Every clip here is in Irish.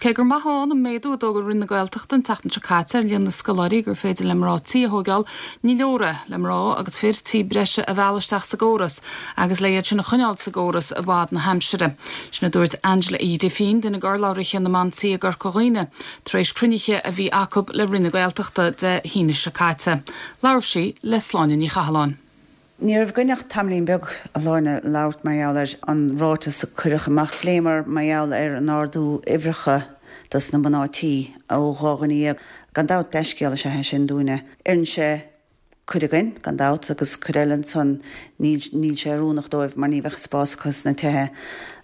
Cé gur maith ann an méadú a d'fhógair Roinn na Gaeltachta an tseachtain seo caite ar líon na scoláirí gur féidir le mná tí a thóigeáil, ní leor é le mná agus fir tí breise a mhealladh isteach sa gcóras agus le iad sin a choinneáil sa gcóras i bhfad na haimsire. Sin a dúirt Angela Uí Ghrifín, duine d'urlabhraithe na mban tí i gCorca Dhuibhne, tar éis cruinnithe a bhí acu le Roinn na Gaeltachta Dé hAoine seo caite. Labhair sí le Sláine Ní Chathalláin. Ní raibh againn ach tamaillín beag, a Shláine, labhairt mar gheall ar an ráiteas a cuireadh amach. Phléamar mar gheall ar an ardú uimhreacha dos na mná tí ó 12 dhuine. Gan dabht, dea-scéal is ea é sin dúinne. Oireann sé cuid againn, gan dabht, agus cuid eile ansan níl níl sé oiriúnach dóibh mar ní bheadh spás acu sna tithe.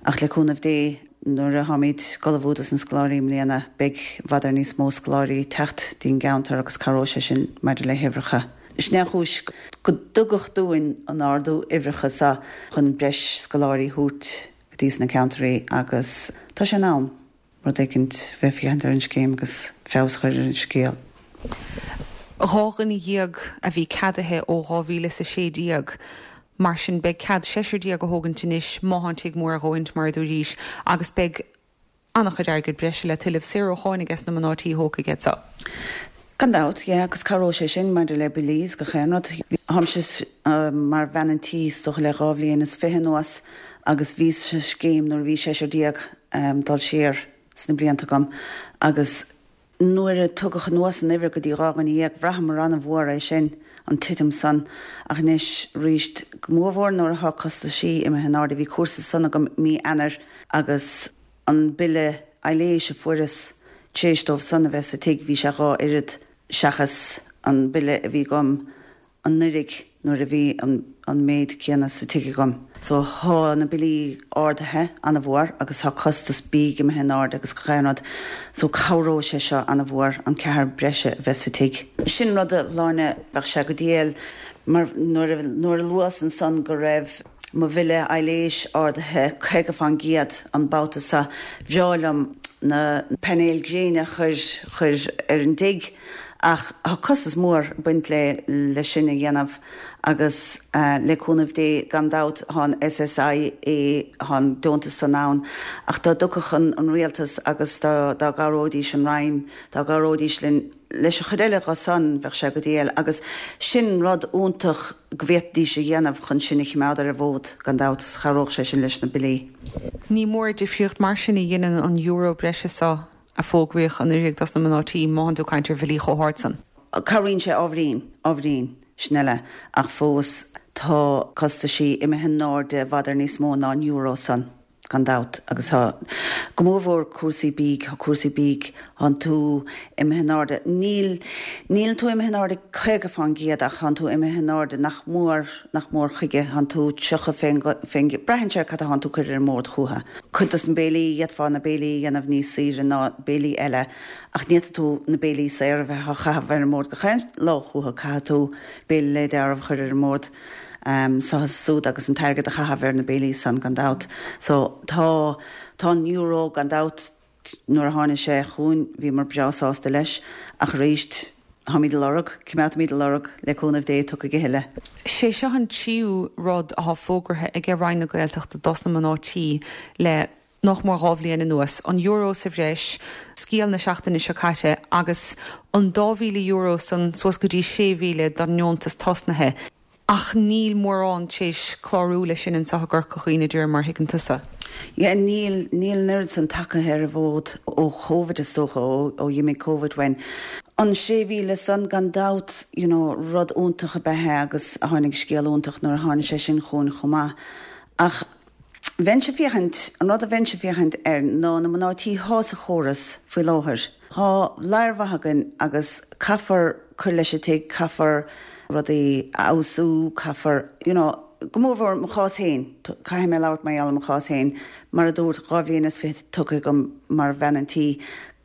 Ach le cúnamh Dé, nuair a tháimid ag ullmhú dos na scoláirí i mbliana, beidh i bhfad ar níos mó scoláirí ag teacht dtí'n gceantar agus cabhróidh sé sin maidir le huimhreacha. Sin é an chúis go dtugadh dúinn an ardú uimhreacha so chun breis scoláirí thabhairt go dtí sna ceantairí agus tá sé in am rud éicint bheith féachaint ar an scéim agus feabhas a chur ar an scéal. 12 dhuine a bhí ceadaithe ó 2016, mar sin beidh cead seisear déag a thógaint anois má thá an tigh mór a dhóthaint, mar a dúraís, agus beidh an-chuid airgead breise le tuilleamh, saor ó cháin ages na mná tí a thógfaidh iad so. Gan dabht, yeah, agus cabhróidh sé sin maidir le billí is gach aon rud. Táimse mar bhean an tí is dócha le dhá bhliain is fiche anuas agus bhíos sa scéim nuair a bhí seisear dul siar sna blianta agam agus Nuair a tugadh anuas an uimhir go dtí 12 dhuine, bhraitheamar an-mhór é sin, an titim san. Ach anois ríst, go mórmhór nuair atá costaisí imithe in airde, bhí cúrsa san agam mí Eanáir agus an bille aibhléis a fuaireas tar éis dóibh san a bheith sa tigh, bhí sé dhá oiread seachas an bille a bhí agam anuiridh nuair a bhí an méid céanna sa tigh agam. So thá na billí ardaithe ana-mhór agus thá costas bídh imithe in airde agus gach aon rud. So cabhróidh sé seo ana-mhór, an ceathrar breise a bheith sa tigh. Sin rud a Shláine, bheadh sé go diail mar nuair a nuair a luas ansan go raibh mo bhille aibhléis ardaithe 50 fán gcéad an babhta seo, bhreá liom na painéil gréine a chur chur ar an dtigh. Ach tá costas mór ag baint le le sin a dhéanamh agus le cúnamh Dé gan dabht tá an SSIA, tá an deontas san ann ach dá dtiocfadh an an rialtas agus dá dá gcabhróidís an Roinn, dá gcabhróidís linn leis an chuid eile dho san bheadh sé go diail agus sin rud iontach go bhféadfaidís a dhéanamh chun sinn a chimeád ar an bhfód gan dabht, chabhródh sé sin leis na billí. Ní mór difríocht mar sin a dheineann an euro breise so. a fógraíodh anuiridh dos na mná tí, má thánn tú ag caint ar bhillí chomh hard san. Cabhraíonn sé ábhairín, ábhairín, sin eile, ach fós tá costaisí imithe in airde i bhfad ar níos mó ná an euro san, gan dabht, agus tá, go mórmhór cúrsaí bídh, tá cúrsaí bídh, thánn tú imithe in airde, níl, níl tú imithe in airde 50% ach thánn tú imithe in airde nach mór, nach mór chuige, thánn tú 30 fén, fén, braitheann sé ar cad a thánn tú cur ar an mbord chútha. Cuid dos na béilí, d'fhéadfá na béilí a dhéanamh níos saoire ná béilí eile ach ní fhéadfaidh tú na béilí saora a bheith á chaitheamh ar an mbord gach aon lá chúthu, caithfidh tú béile le dealramh a chur ar an mbord so is súd agus an t-airgead a chaitheamh ar na béilí san gan dabht. So tá, tá an euro gan dabht Nuair a tháinig sé chugainn bhíomar breá sásta leis, ach arís, táimid ag lorg, coimeádfaimid ag lorg, le cúnamh Dé, tiocfaidh a thuilleadh. Sé seo an tríú rud athá fógraithe aige Roinn na Gaeltachta dos na mná tí le nach mór 2 bhliain anuas, an euro sa bhreis, scéal na seachtaine seo caite, agus an €2,000 san suas go dtí 6,000 don ndeontas tosnaithe. Ach níl mórán t'éis clárú leis sin anseo i gCorca Dhuibhne de réir mar a thuigeann tusa. Yeah, níl, níl an oiread san tacaithe ar an bhfód ó Covid is dócha, ó, ó dh'imigh Covid uainn. An 6,000 san gan dabht, you know, rud iontach ab ea é agus tháinig scéal iontach nuair a tháinig sé sin chugainn chomh maith. Ach bheinnse ag féachaint, an rud a bheinnse ag féachaint air ná na mná tí thá sa chóras faoi láthair. Thá ladhar mhaith againn agus caithfear cur leis an tigh, caithfear rudaí a fheabhsú, caithfear, you know, go mórmhór mo chás féin, caithfidh mé labhairt mar gheall ar mo chás féin, mar a dúirt, 2 bhliain is fiche tugtha agam mar bhean an tí,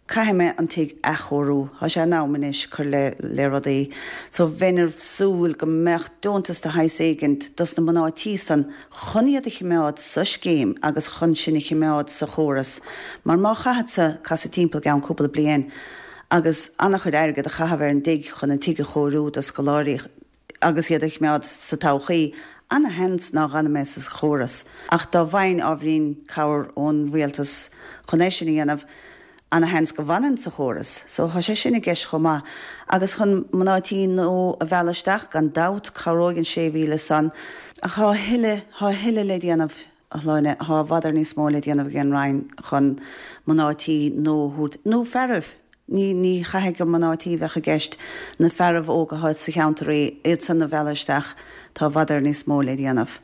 Caithfidh mé an tigh athchóiriú. Tá sé in am anois cur le le rudaí. So bheinn ag súil go mbeadh deontas de shaghas éigint dos na mná tí san chun iad a chimeád sa scéim agus chun sinn a chimeád sa chóras. Mar má chaithfeadsa casadh timpeall i gceann cúpla bliain agus an-chuid airgead a chaitheamh ar an dtigh chun an tigh a chóiriú do scoláirí, agus iad a chimeád sa todhchaí, ana-sheans ná dh'fhanfaidh mé sa chóras. Ach dá bhfaighinn ábhairín cabhair ón rialtas chun é sin a dhéanamh, Ana-sheans go bhfanann sa chóras. So tá sé sin i gceist chomh maith. Agus chun mná tí nua a mhealladh isteach, gan dabht, cabhróidh an 6,000 san. Ach tá a thuilleadh, tá a thuilleadh le déanamh, a Shláine, tá i bhfad ar níos mó le déanamh ag an Roinn chun mná tí nua a thabhairt, nó fearaibh, ní, ní chaithfidh gur mná tí a bheadh i gceist, na fearaibh óga atá sa cheantar, iad san a mhealladh isteach, tá i bhfad ar níos mó le déanamh.